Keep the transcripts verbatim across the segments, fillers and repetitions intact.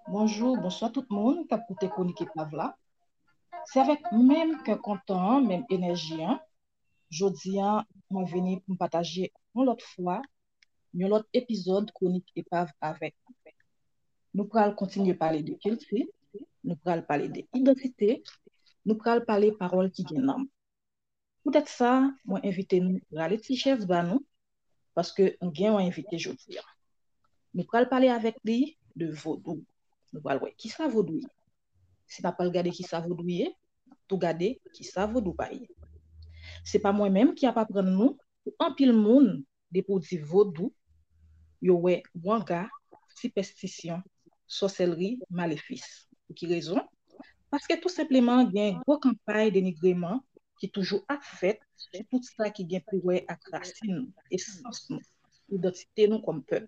Bonjou, bonswa tout moun k ap koute Kwonik Epav la. Se avèk menm kè kontan an, menm enèji an, jodi a, mwen vini pou m pataje yon lòt fwa, yon lòt epizòd Kwonik Epav avèk nou. Nou pral kontinye pale de kilti, nou pral pale de idantite, nou pral pale pawòl ki gen nanm. Poutèt sa, mwen envite nou rale ti chèz ba nou, paske nou gen yon envite jodi a. Nou pral pale avèk li de vodou. Nou pral wè kisa vodou ye. Si n ap pral gade kisa vodou ye, n ap tou gade kisa vodou pa ye. Se pa mwen menm ki ap aprann nou, pou anpil moun, depi w di vodou, yo wè wanga, sipèstisyon, sòsèlri, malefis. Pou ki rezon? Paske tou senpleman gen gwo kanpay denigreman ki toujou ap fèt sou tout sa ki gen pou wè ak rasin nou, esans nou, idantite nou kòm pèp.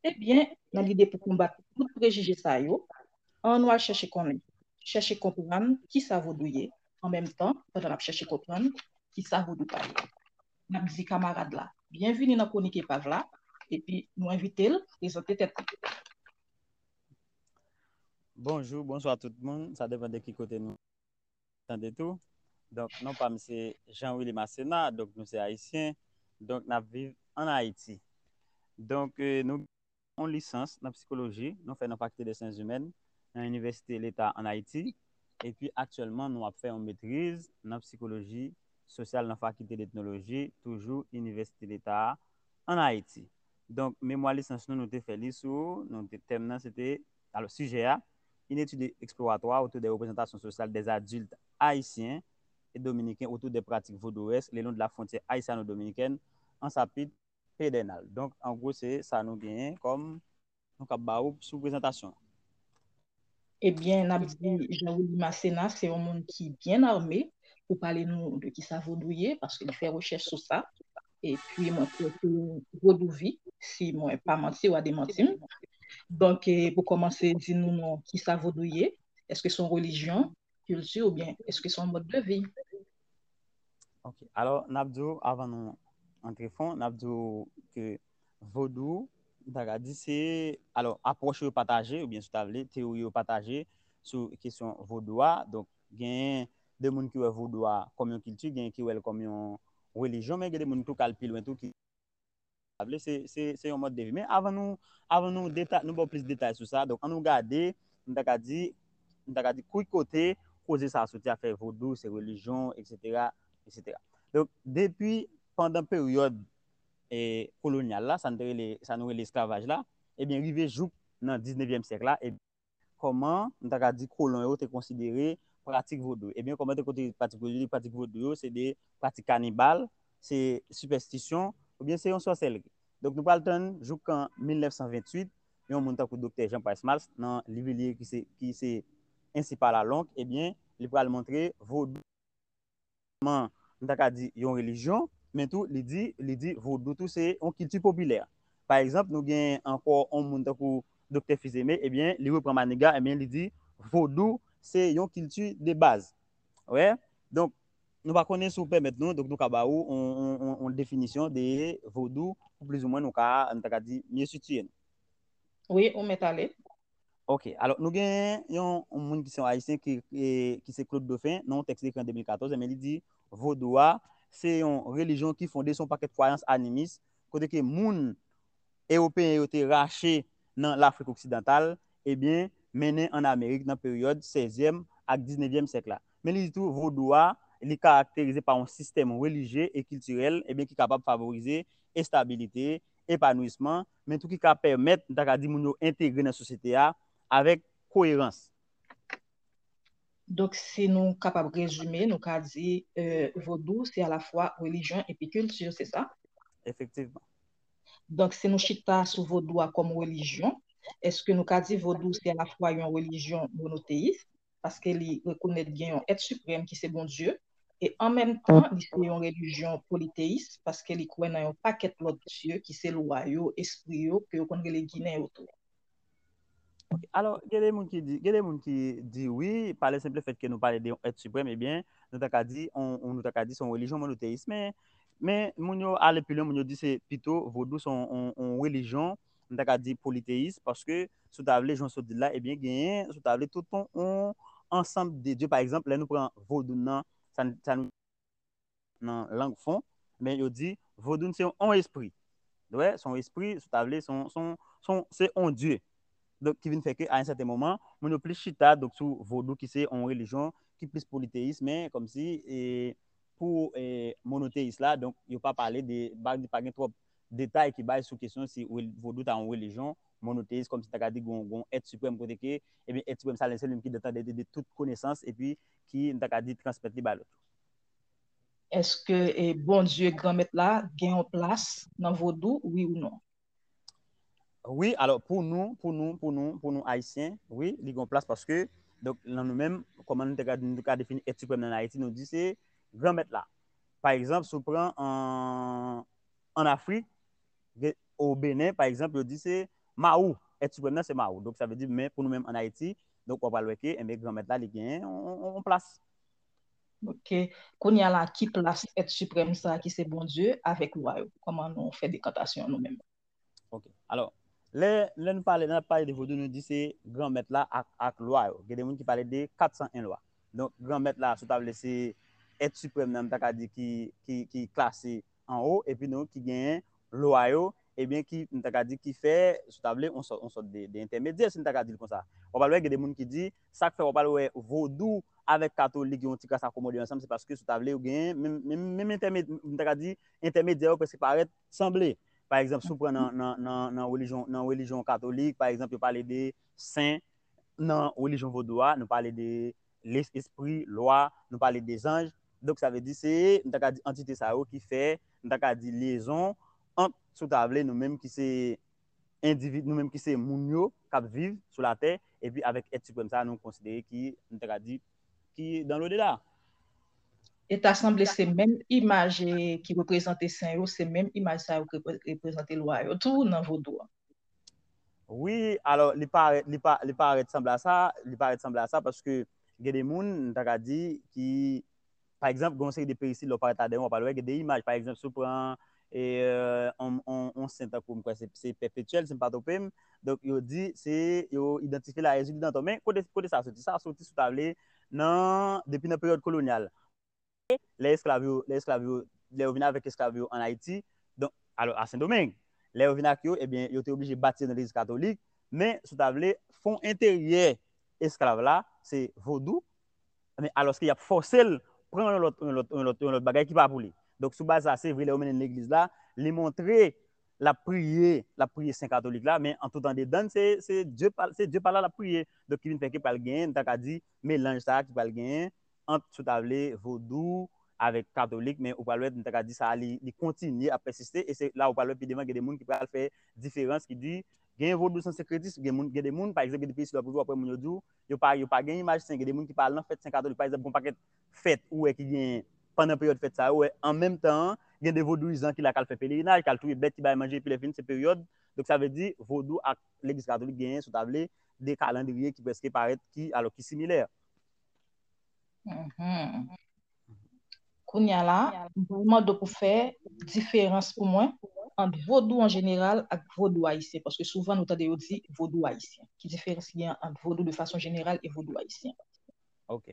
Ebyen, nan lide pou konbat tout prejije sa yo, ann nou al chèche konnen, chèche konprann kisa vodou ye, an menm tan, pandan n ap chèche konprann kisa vodou pa ye. N ap di kamarad la, byenvini nan Kwonik Epav la, epi nou envite l prezante tèt li. Bonjou, bonswa tout moun. Sa depann de ki kote nou tande tou. Donk, non pa m se Jean Willy Masséna, donk nou se ayisyen. Donk, n ap viv ann Ayiti. Donk, eh, nou yon lisans nan psikoloji, nou fè nan Fakilte de Syans Imèn, nan Inivèsite Leta ann Ayiti. Epi, aktyèlman, nou ap fè yon metriz nan psikoloji sosyal nan Fakilte d'Etnoloji, toujou Inivèsite Leta a, ann Ayiti. Donk, memwa lisans nou, nou te fè li sou, nou te, tèm nan, se te, alò, sijè a, une étude exploratoire autour des représentations sociales des adultes haïtiens et dominicains autour des pratiques vaudouesques le long de la frontière haïtiano-dominicaine en chapitre pédernal. Donk, an gwo, se sa nou genyen kòm nou kab ba ou sou prezantasyon. Ebyen, n ap di Jean Willy Masséna se yon moun ki byen ame pou pale nou de kisa vodou ye, paske li fè rechèch sou sa. Epi, mwen kwè ke vodou vi, si mwen pa manti, w a demanti m. Donk, eh, pou kòmanse, di nou non, kisa vodou ye? Èske se yon relijyon, kilti, oubyen èske se yon mòd de vi? Ok. Alò, n ap di w, avan nou antre fon, n ap di w ke vodou, m ta ka di se, alò, apwòch yo pataje, oubyen si w ta vle, teyori yo pataje sou kesyon vodou a. Donk, genyen de moun ki wè vodou a kòm yon kilti, genyen ki wè l kòm yon relijyon, men gen de moun tou k al pi lwen tou, ki sa vle, se, se, se yon mòd de vi. Men avan nou, avan nou deta-, nou ba w plis detay sou sa, donk, ann nou gade, m ta ka di, m ta ka di, ki kote koze sa a soti, afè vodou, se relijyon, etsetera, etsetera. Donk, depi pandan peryòd, eh, kolonyal la, sa n te rele, sa nou rele esklavaj la, ebyen, rive jouk nan diznevyèm syèk la, e kòman, m ta ka di, kolon yo te konsidere pratik vodou. Ebyen, kòman te konsidere pratik vodou? Pratik vodou yo, se de pratik kanibal, se sipèstisyon, oubyen se yon sòsèlri. Donk, nou pral tann jouk an mil nèf san venntuit, yon moun tankou Doktè Jean Price Mars, nan liv li ki se, ki se Ainsi parla l'oncle, ebyen, li pral montre vodou, m ta ka di, yon relijyon, men tou, li di, li di vodou tou se yon kilti popilè. Pa egzanp, nou gen ankò yon moun tankou Doktè Fils-Aimé, ebyen, li repran Maniga, ebyen, li di vodou se yon kilti de baz. Wè? Donk, nou pa konnen si w pèmèt nou, donk nou ka ba ou yon, yon, yon, yon definisyon de vodou, pou plizoumwen nou ka, nou ta ka di, mye sitiye nou. Wi, ou mèt ale. Ok, alò, nou gen yon, yon moun ki se yon ayisyen ki, e, ki se Claude Dauphin, nan yon tèks li ekri an de mil katòz, ebyen, li di, vodou a, se yon relijyon ki fonde sou yon pakèt kwayans animis, kote ke moun ewopeyen yo te rache nan Lafrik oksidantal, ebyen, mennen ann Amerik nan peryòd sèzyèm ak diznevyèm syèk la. Men li di tou, vodou a, li karakterize pa yon sistèm relijye e kiltirèl, ebyen, ki kapab favorize estabilite, epanouisman, men tou ki ka pèmèt, m ta ka di, moun yo entegre nan sosyete a avèk koyerans. Donk, si nou kapab rezime, nou ka di euh, vodou se alafwa relijyon epi kilti, se sa? Efektivman. Donk, si nou chita sou vodou a kòm relijyon, èske nou ka di vodou se alafwa yon relijyon monoteyis, paske li rekonèt gen yon èt siprèm ki se Bondye, e an menm tan, li se yon relijyon politeyis, paske li kwè nan yon pakèt lòt dye ki se lwa yo, espri yo, ke yo konn rele Ginen yo tou. Alò, gen de moun ki di, gen de moun ki di wi, pa le simple fait que nou pale de yon èt siprèm, ebyen, nou ta ka di, on, on, nou ta ka di se yon relijyon monoteyis. Men, men moun yo ale pi lwen, moun yo di se pito vodou se yon, yon, yon relijyon, nou ta ka di politeyis, paske si w ta vle, jan w sot di l la, ebyen, genyen, si w ta vle, tout yon, yon ansanm de dye. Pa egzanp, lè nou pran vodou nan, sa, sa nou nan lang fon, men yo di vodou se yon espri. Wè, se yon espri, si w ta vle, se yon, se yon, se yon, se yon dye. Donk, ki vin fè ke, a yon sèten moman, moun yo plis chita, donk, sou vodou ki se yon relijyon ki plis politeyis, men kòmsi, e, pou e, monoteyis la, donk, yo pa pale de, pa, pa gen twòp detay ki bay sou kesyon si rel- vodou ta yon relijyon monoteyis, kòmsi ta ka di gon, gon èt siprèm kote ke, ebyen, èt siprèm sa, se li menm ki detante de, de tout konesans, epi ki, m ta ka di, transmèt li bay lòt yo. Èske e, Bondye Granmèt la gen yon plas nan vodou, wi ou non? Wi, alò, pou nou, pou nou, pou nou, pou nou Ayisyen, wi, li gen yon plas paske, donk, nan nou menm, kòman nou te ka, nou te ka defini èt siprèm nan Ayiti, nou di se Granmèt la. Pa egzanp, si w pran an, an Afrik, gen, o Benen, pa egzanp, yo di se Mawou. Èt siprèm nan se Mawou. Donk, sa vle di, men pou nou menm an Ayiti, donk, w ap pral wè ke, enben, Granmèt la, li gen yon, yon, yon plas. Ok. Kounye a la, ki plas èt siprèm sa ki se Bondye avèk lwa yo? Kòman nou fè dekantasyon nou menm? Ok. Alò, lè, lè nou pale, lè n ap pale de vodou, nou di se Granmèt la ak, ak lwa yo. Gen de moun ki pale de kat san en lwa. Donk, Granmèt la, si w ta vle, se èt siprèm nan, m ta ka di ki, ki, ki klase anwo, epi donk, ki genyen lwa yo, ebyen, ki, m ta ka di, ki fè, si w ta vle, on sòt, on sòt de, de entèmedyè, si m ta ka di l konsa. W ap pral wè, gen de moun ki di, sa k fè w ap pral wè vodou avèk katolik yo yon ti kras akomode ansanm, se paske, si w ta vle, yo genyen menm, menm, menm entèmedyè, m ta ka di, entèmedyè yo prèske parèt sanble. Pa egzanp, si w pran nan, nan, nan, nan relijyon, nan relijyon katolik, pa egzanp, yo pale de sen, nan relijyon vodou a, nou pale de les- espri, lwa, nou pale de zanj. Donk, sa vle di se, m ta ka di, antite sa yo ki fè, m ta ka di, lyezon ant, si w ta vle, nou menm ki se endividi, nou menm ki se moun yo k ap viv sou latè, epi avèk èt siprèm sa a, nou konsidere ki, m ta ka di, ki dans l'au-delà. E ta sanble se menm imaj e, ki reprezante sen yo, se menm imaj sa yo ki repre- reprezante lwa yo tou nan vodou a. Wi, alò, li parèt, li pa, li parèt sanble a sa, li parèt sanble a sa paske gen de moun, m ta ka di, ki, pa egzanp, gen yon seri de peyisid, lè w parèt ladan yo, w ap pral wè, gen de imaj, pa egzanp, si w pran e, on, on, on sen tankou, m kwè se, se Pèpetyèl, si m pa twonpe m. Donk, yo di, se, yo idantifye l a Ezili Danton. Men, kote, kote sa soti? Sa soti, si w ta vle, nan, depi nan peryòd kolonyal. Lè esklav yo, lè esklav yo, lè yo vin avèk esklav yo ann Ayiti, donk, alò, a Sendomeng, lè yo vin ak yo, ebyen, yo te oblije batize nan legliz katolik, men, si w ta vle, fon enteryè esklav la, se vodou, men alòske y ap fòse l pran yon lòt, yon lòt, yon lòt, yon lòt bagay ki pa pou li. Donk, sou baz sa, se vre, lè yo mennen l legliz la, li montre l ap priye, l ap priye sen katolik la, men an tout andedan, se, se Dye pa, se Dye pa l la l ap priye. Donk, ki vin fè ke pral genyen, m ta ka di, melanj sa a ki pral genyen ant, si w ta vle, vodou avèk katolik, men ou pral wè, m ta ka di sa a, li, li kontinye ap pèsiste, e se la ou pral wè pi devan, gen de moun ki pral fè diferans, ki di, gen vodou san senkretis, gen moun, gen de moun, pa egzanp, gen de peyi si w ap rive, w ap wè moun yo di w, yo pa, yo pa gen imaj sen, gen de moun ki pa al nan fèt sen katolik, pa egzanp, gon pakèt fèt ou wè ki gen pandan peryòd fèt sa yo, ou wè an menm tan an, gen de vodouyizan ki la k al fè pelerinaj, k al touye bèt, ki bay manje, epi lè fini se peryòd. Donk sa vle di vodou ak legliz katolik genyen, si w ta vle, de kalandriye ki prèske parèt, ki, alò ki similè. Mhm. Kounye a la, m pral mande w pou fè diferans pou mwen ant vodou an jeneral ak vodou ayisyen, paske souvan nou tande yo di vodou ayisyen. Ki diferans ki gen ant vodou de fason jeneral e vodou ayisyen? Ok.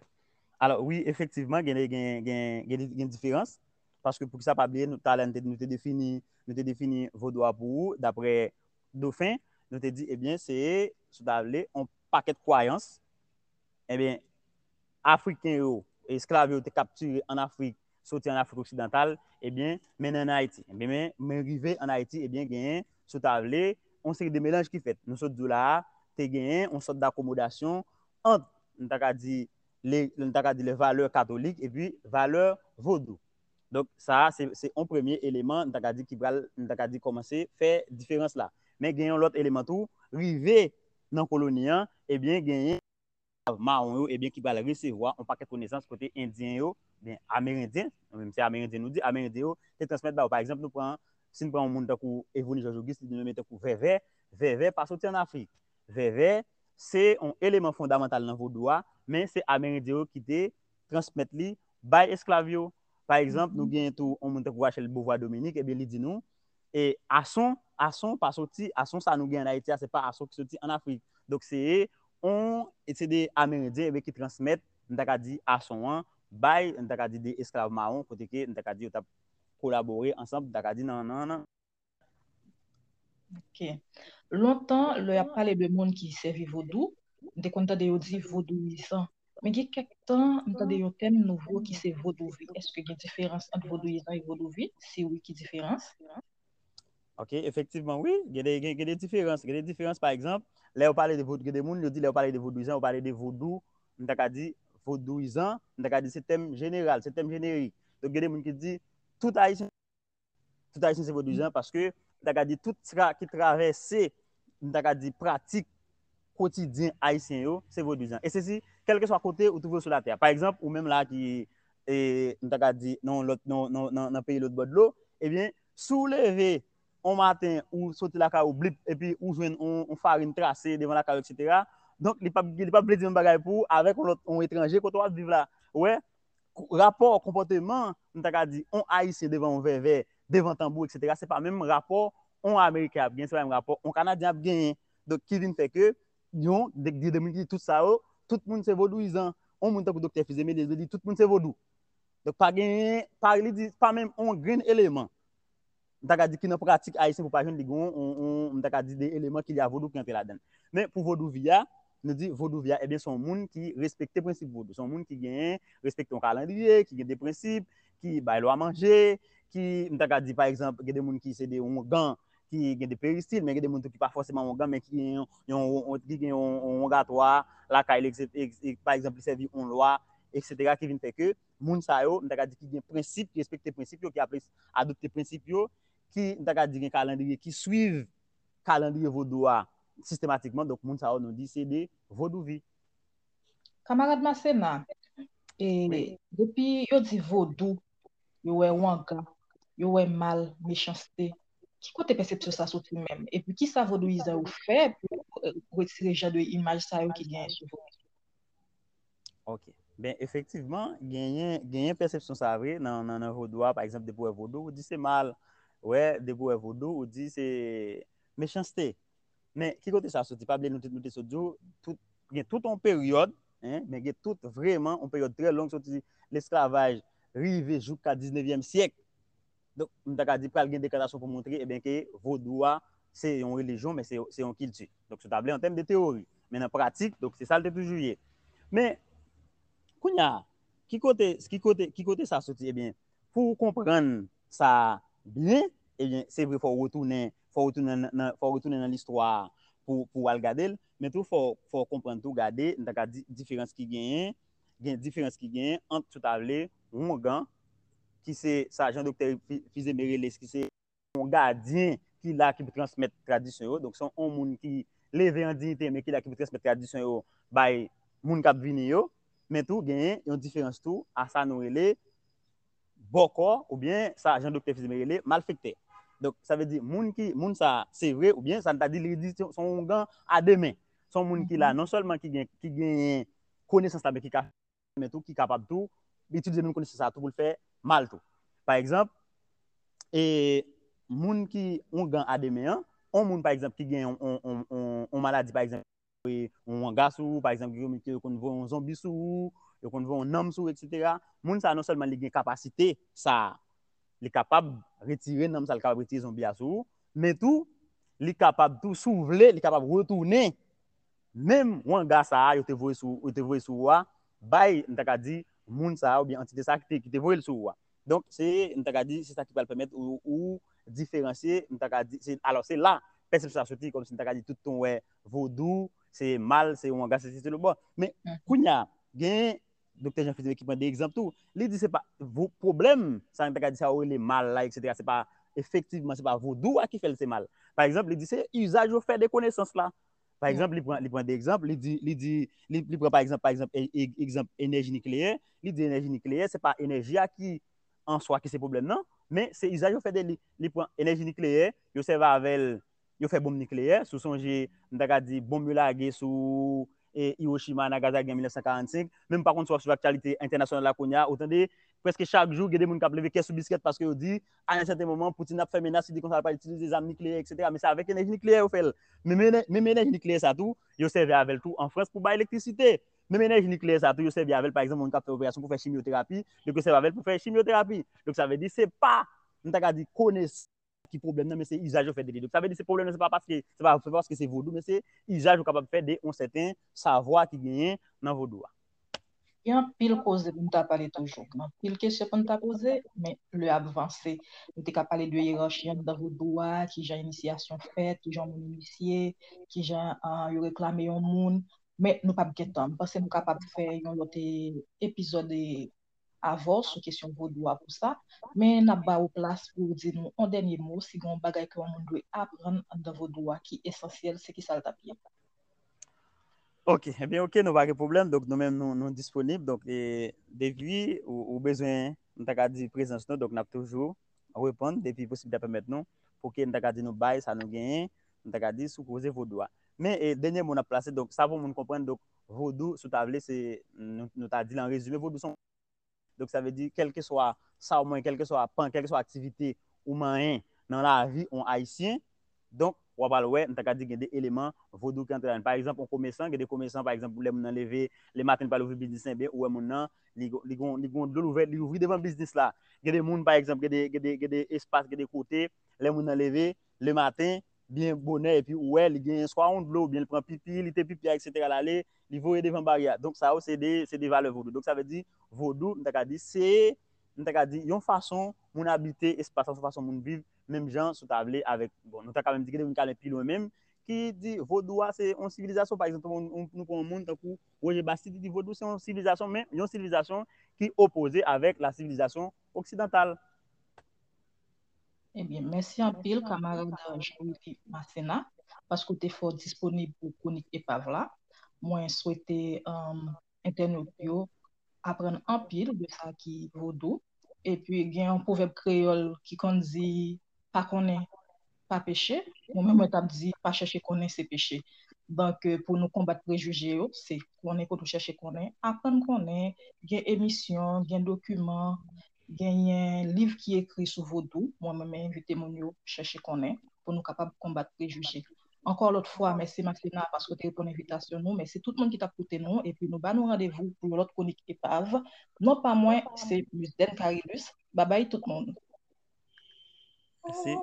Alò, wi, efektivman, gen, gen, gen, gen, gen diferans. Paske poukisa pa bliye, nou talè nou te, nou te defini, nou te defini vodou a pou ou, daprè Dofen, nou te di, ebyen, se, si w ta vle, yon pakèt kwayans, ebyen, Afriken yo, esklav yo te kaptire ann Afrik, soti ann Afrik oksidantal, ebyen, mennen ann Ayiti. Ebyen, men, men rive ann Ayiti, ebyen, genyen, si w ta vle, yon seri de melanj ki fèt. Nou sot di w la a, te genyen yon sòt dakomodasyon ant, nou ta ka di, le, nou ta ka di, le valè katolik epi valè vodou. Donk, sa a, se, se yon premye eleman, nou ta ka di, ki pral, nou ta ka di, kòmanse fè diferans la. Men gen yon lòt eleman tou, rive nan koloni an, ebyen, genyen mawon yo, ebyen, ki pral resevwa yon pakèt konesans kote Endyen yo, ben, Amerendyen, nou menm se Amerendyen nou di, Amerendyen yo te transmèt ba yo. Pa egzanp, nou pran, si n pran yon moun tankou Evoni Jòj Ogis, li di nou menm tankou vèvè, vèvè pa soti ann Afrik. Vèvè, se yon eleman fondamantal nan vodou a, men se Amerendyen yo ki te transmèt li bay esklav yo. Pa egzanp, nou genyen tou yon moun tankou Rachel Beauvoir Dominique, ebyen, li di nou, e ason, ason pa soti, ason sa nou gen ann Ayiti a, se pa ason ki soti ann Afrik. Donk, se yon, e se de Amerendyen, ebyen, ki transmèt, m ta ka di, ason an, bay, m ta ka di, de esklav mawon, kote ke, m ta ka di, yo t ap kolabore ansanm, m ta ka di, nan, nan, nan. Ok. Lontan, lè y ap pale de moun ki sèvi vodou, m te konn tande yo di vodouyizan. Men gen kèk tan, m tande yon tèm nouvo ki se vodouvi. Èske gen diferans ant vodouyizan e vodouvi? Si wi, ki diferans? Ok, efektivman, wi. Gen de, gen, gen de diferans. Gen de diferans, pa egzanp, lè yo pale de vodou, gen de moun, yo di lè yo pale de vodouyizan, yo pale de vodou, m ta ka di vodouyizan, m ta ka di se tèm jeneral, se tèm jenerik. Donk, gen de moun ki di, tout Ayisyen, tout Ayisyen se vodouyizan, paske, m ta ka di, tout sa ki travèse, m ta ka di, pratik kotidyen Ayisyen yo, se vodouyizan. E se si, kèlkeswa kote ou twouve w sou latè a. Pa egzanp, ou menm la ki, e, m ta ka di, nan lòt, nan, nan, nan, nan peyi lòt bò dlo, ebyen, si w leve yon maten, ou soti lakay ou, blip, epi ou jwenn yon, yon farin trase devan lakay ou, etsetera. Donk, li p ap, li p ap vle di menm bagay pou ou avèk yon lòt, yon etranje, kote w ap viv la. Ou wè, rapò, konpòteman, m ta ka di, yon Ayisyen devan yon vèvè, devan tanbou, etsetera, se pa menm rapò yon Ameriken ap gen, se pa menm rapò yon Kanadyen ap genyen. Donk, ki vin fè ke, yon, de, de, de moun ki di tout sa yo, tout moun se vodouyizan. Yon moun tankou Doktè Fils Aimé, li di tout moun se vodou. Donk, pa genyen, pa, li di, pa menm yon grenn eleman, m ta ka di, ki nan pratik ayisyen pou pa jwenn li gen yon, yon, yon, m ta ka di, de eleman ki lye a vodou ki antre ladan l. Men pou vodouvi a, nou di vodouvi a, ebyen, se yon moun ki respekte prensip vodou. Se yon moun ki genyen, respekte yon kalandriye, ki gen de prensip, ki bay lwa manje, ki, m ta ka di, pa egzanp, gen de moun ki se de oungan, ki gen de peristil, men gen de moun tou ki pa fòseman oungan, men ki gen yon, yon, yon, ki gen yon, yon oungatwa lakay li, eksetera, pa egzanp, li sèvi yon lwa, eksetera, ki vin fè ke moun sa yo, m ta ka di ki gen prensip, ki respekte prensip yo, ki aple-, adopte prensip yo, ki, m ta ka di gen kalandriye, ki swiv kalandriye vodou a sistematikman. Donk, moun sa yo, nou di se de vodouvi. Kamarad Masséna, e, depi yo di vodou, yo wè wanga, yo wè mal, mechanste, ki kote pèsepsyon sa soti menm? Epi kisa vodouyizan yo fè pou, e, retire jan de imaj sa yo ki genyen sou vodou? Ok. Ben, efektivman, genyen, genyen pèsepsyon sa vre nan, nan, nan vodou a. Pa egzanp, depi w wè vodou, ou di se mal. Ou wè, depi w wè vodou, ou di se mechanste. Men, ki kote sa soti? Pa bliye nou te, nou te sot di w, tout, gen tout yon peryòd, en, men gen tout vrèman yon peryòd trè long soti lesklavaj rive jouka diznevyèm syèk. Donk, m ta ka di pral gen dekantasyon pou montre, ebyen, ke vodou a, se yon relijyon, men se, se yon kilti. Donk, si w ta vle, an tèm de teyori. Men nan pratik, donk, se sa l te toujou ye. Men, kounye a, ki kote, ki kote, ki kote sa soti? Ebyen, pou w konprann sa byen, ebyen, se vre, fò w retounen, fò w retounen nan, nan, fò w retounen nan listwa a pou, pou w al gade l, men tou, fò, fò w konprann tou, gade, m ta ka di, diferans ki genyen, gen diferans ki genyen ant, si w ta vle, wongan, ki se sa jan Doktè Fi-, Fils Aimé rele, ki se yon gadyen ki la, ki pou transmèt tradisyon yo. Donk, se yon moun ki leve an diyite, men ki la, ki pou transmèt tradisyon yo bay moun k ap vini yo. Men tou, genyen yon diferans tou a sa nou rele bòkò, oubyen sa jan Doktè Fils Aimé rele malfektè. Donk, sa vle di, moun ki, moun sa, se vre, oubyen sa n ta di, li di, se, se yon wongan a de men. Se yon moun ki la, non sèlman ki gen, ki genyen konesans la, men ki ka men tou ki kapab tou itilize menm konesans sa tou pou l fè mal tou. Pa egzanp, e, moun ki wongan a de men an, yon moun, pa egzanp, ki gen yon, yon, yon, yon, yon maladi, pa egzanp, e, yon wanga sou ou, pa egzanp, gen moun ki yo konn voye yon zonbi sou ou, yo konn voye yon nanm sou ou, etsetera. Moun sa, non sèlman li gen kapasite sa a, li kapab retire nanm sa, li kapab retire zonbi a sou ou, men tou, li kapab tou, si w vle, li kapab retounen menm wanga sa a yo te voye sou, yo te voye sou ou a, bay, m ta ka di, moun sa a oubyen antite sa a ki te, ki te voye l sou ou a. Donk, se, m ta ka di, se sa ki pral pèmèt ou, ou diferansye, m ta ka di, se, alò, se la pèsepsyon sa soti, kòmsi m ta ka di, tout tan w wè vodou, se mal, se wanga, se sesi, se lo bò. Men, kounye a, gen Doktè Jean Philippe ki pran de egzanp tou. Li di se pa vo-, pwoblèm, sa n ta ka di sa yo rele mal la, et cetera. Se pa, efektivman, se pa vodou a ki fè l se mal. Pa egzanp, li di se izaj yo fè de konesans la. Pa egzanp, li pran, li pran de egzanp, li di, li di, li, li pran pa egzanp, pa egzanp, e, e, egzanp enèji nikleyè, li di enèji nikleyè, se pa enèji a ki an swa ki se pwoblèm nan, men se izaj yo fè de li. Li pran enèji nikleyè, yo sèvi avè l, yo fè bonm nikleyè, si w sonje, m ta ka di, bonm yo lage sou, e, Hiroshima, Nagasaki an mil nèf san karannsenk, men m pa konn si w ap swiv aktyalite entènasyonal la kounye a, ou tande, prèske chak jou, gen de moun k ap leve kè sou biskèt paske yo di, a yon sèten moman, Putin ap fè menas, li di konsa l pral itilize zam nikleyè, et cetera. Men se avèk enèji nikleyè yo fè l. Men, men, men enèji nikleyè sa tou, yo sèvi avè l tou an Frans pou bay elektrisite. Menm enèji nikleyè sa tou, yo sèvi avè l, pa egzanp, moun k ap fè operasyon pou fè chimyoterapi, donk yo sèvi avè l pou fè chimyoterapi. Donk sa vle di, se pa, m ta ka di, konesans ki pwoblèm nan, men se izaj yo fè de li. Donk sa vle di, se pwoblèm nan, se pa paske, se pa, se pa paske se vodou, men se izaj ou kapab fè de yon sèten savwa ki genyen nan vodou a. Gen anpil koze pou n ta pale toujou. Gen anpil kesyon pou n ta poze, men lè ap vanse. Nou te ka pale de yerachi anndan vodou a, kijan inisyasyon fèt, kijan yon moun inisye, kijan, ah, yo reklame yon moun. Men nou p ap gen tan. M panse nou kapab fè yon lòt, eh, epizòd, eh, avè w sou kesyon vodou a pou sa. Men n ap ba ou plas pou w di nou yon dènye mo, si gen yon bagay ke yon moun dwe aprann anndan vodou a ki esansyèl, se kisa l t ap ye? Ok, ebyen, ok, nou pa gen pwoblèm. Donk, nou menm, nou, nou disponib. Donk, e, depi ou, ou bezwen, m ta ka di, prezans nou, donk, n ap toujou reponn depi posiblite a pèmèt nou, pou ke, m ta ka di, nou bay sa nou genyen, m ta ka di, sou koze vodou a. Men, e, dènye mo n ap plase, donk, sa pou moun konprann, donk, vodou, si w ta vle, se, nou, nou ta di l an rezime, vodou se yon Donk, sa vle di, kèlkeswa sa w manyen, kèlkeswa pan, kèlkeswa aktivite ou manyen nan lavi yon Ayisyen, donk, w ap al wè, m ta ka di gen de eleman vodou ki antre ladan l. Pa egzanp, yon komesan, gen de komesan, pa egzanp, lè moun nan leve, lematen, li pral ouvri biznis, ebyen, ou wè moun nan, li, li gon, li gon dlo l ouvè, li ouvri devan biznis la. Gen de moun, pa egzanp, gen de, gen de, gen de espas, gen de kote, lè moun nan leve, lematen, byen bonè, epi ou wè, li gen swa yon dlo, oubyen li pran pipi, li te pipi a, et cetera, l ale, li voye devan baryè a. Donk, sa yo, se de, se de valè vodou. Donk, sa vle di, vodou, m ta ka di, se, m ta ka di, yon fason moun abite espas la, yon fason moun viv, menm jan, si w ta vle, avèk, bon, nou ta ka menm di, gen de moun ki ale pi lwen menm, ki di, vodou a, se yon sivilizasyon, pa egzanp, nou, nou pran yon moun tankou Roger Bastide, li di, vodou, se yon sivilizasyon, men yon sivilizasyon ki opoze avèk la sivilizasyon oksidantal. Ebyen, mèsi anpil, kamarad Jean-Willy Masséna, paske w te fè w disponib pou kwonik epav la. Mwen swete, um, entènot yo aprann anpil de sa ki vodou. Epi, gen yon pwovèb kreyòl ki konn di, pa konnen, pa peche. Mwen menm, mwen t ap di, pa chèche konnen, se peche. Donk, eh, pou nou konbat prejije yo, se konnen kote w chèche konnen, aprann konnen, gen emisyon, gen dokiman, genyen liv ki ekri sou vodou. Mwen menm, mwen envite moun yo chèche konnen pou nou kapab konbat prejije. Ankò lòt fwa, mèsi Masséna paske w te reponn envitasyon nou. Mèsi tout moun ki t ap koute nou. Epi nou ba nou randevou pou yon lòt kwonik epav. Non pa mwen, se Miss Den Carilus. Babay tout moun. Mèsi.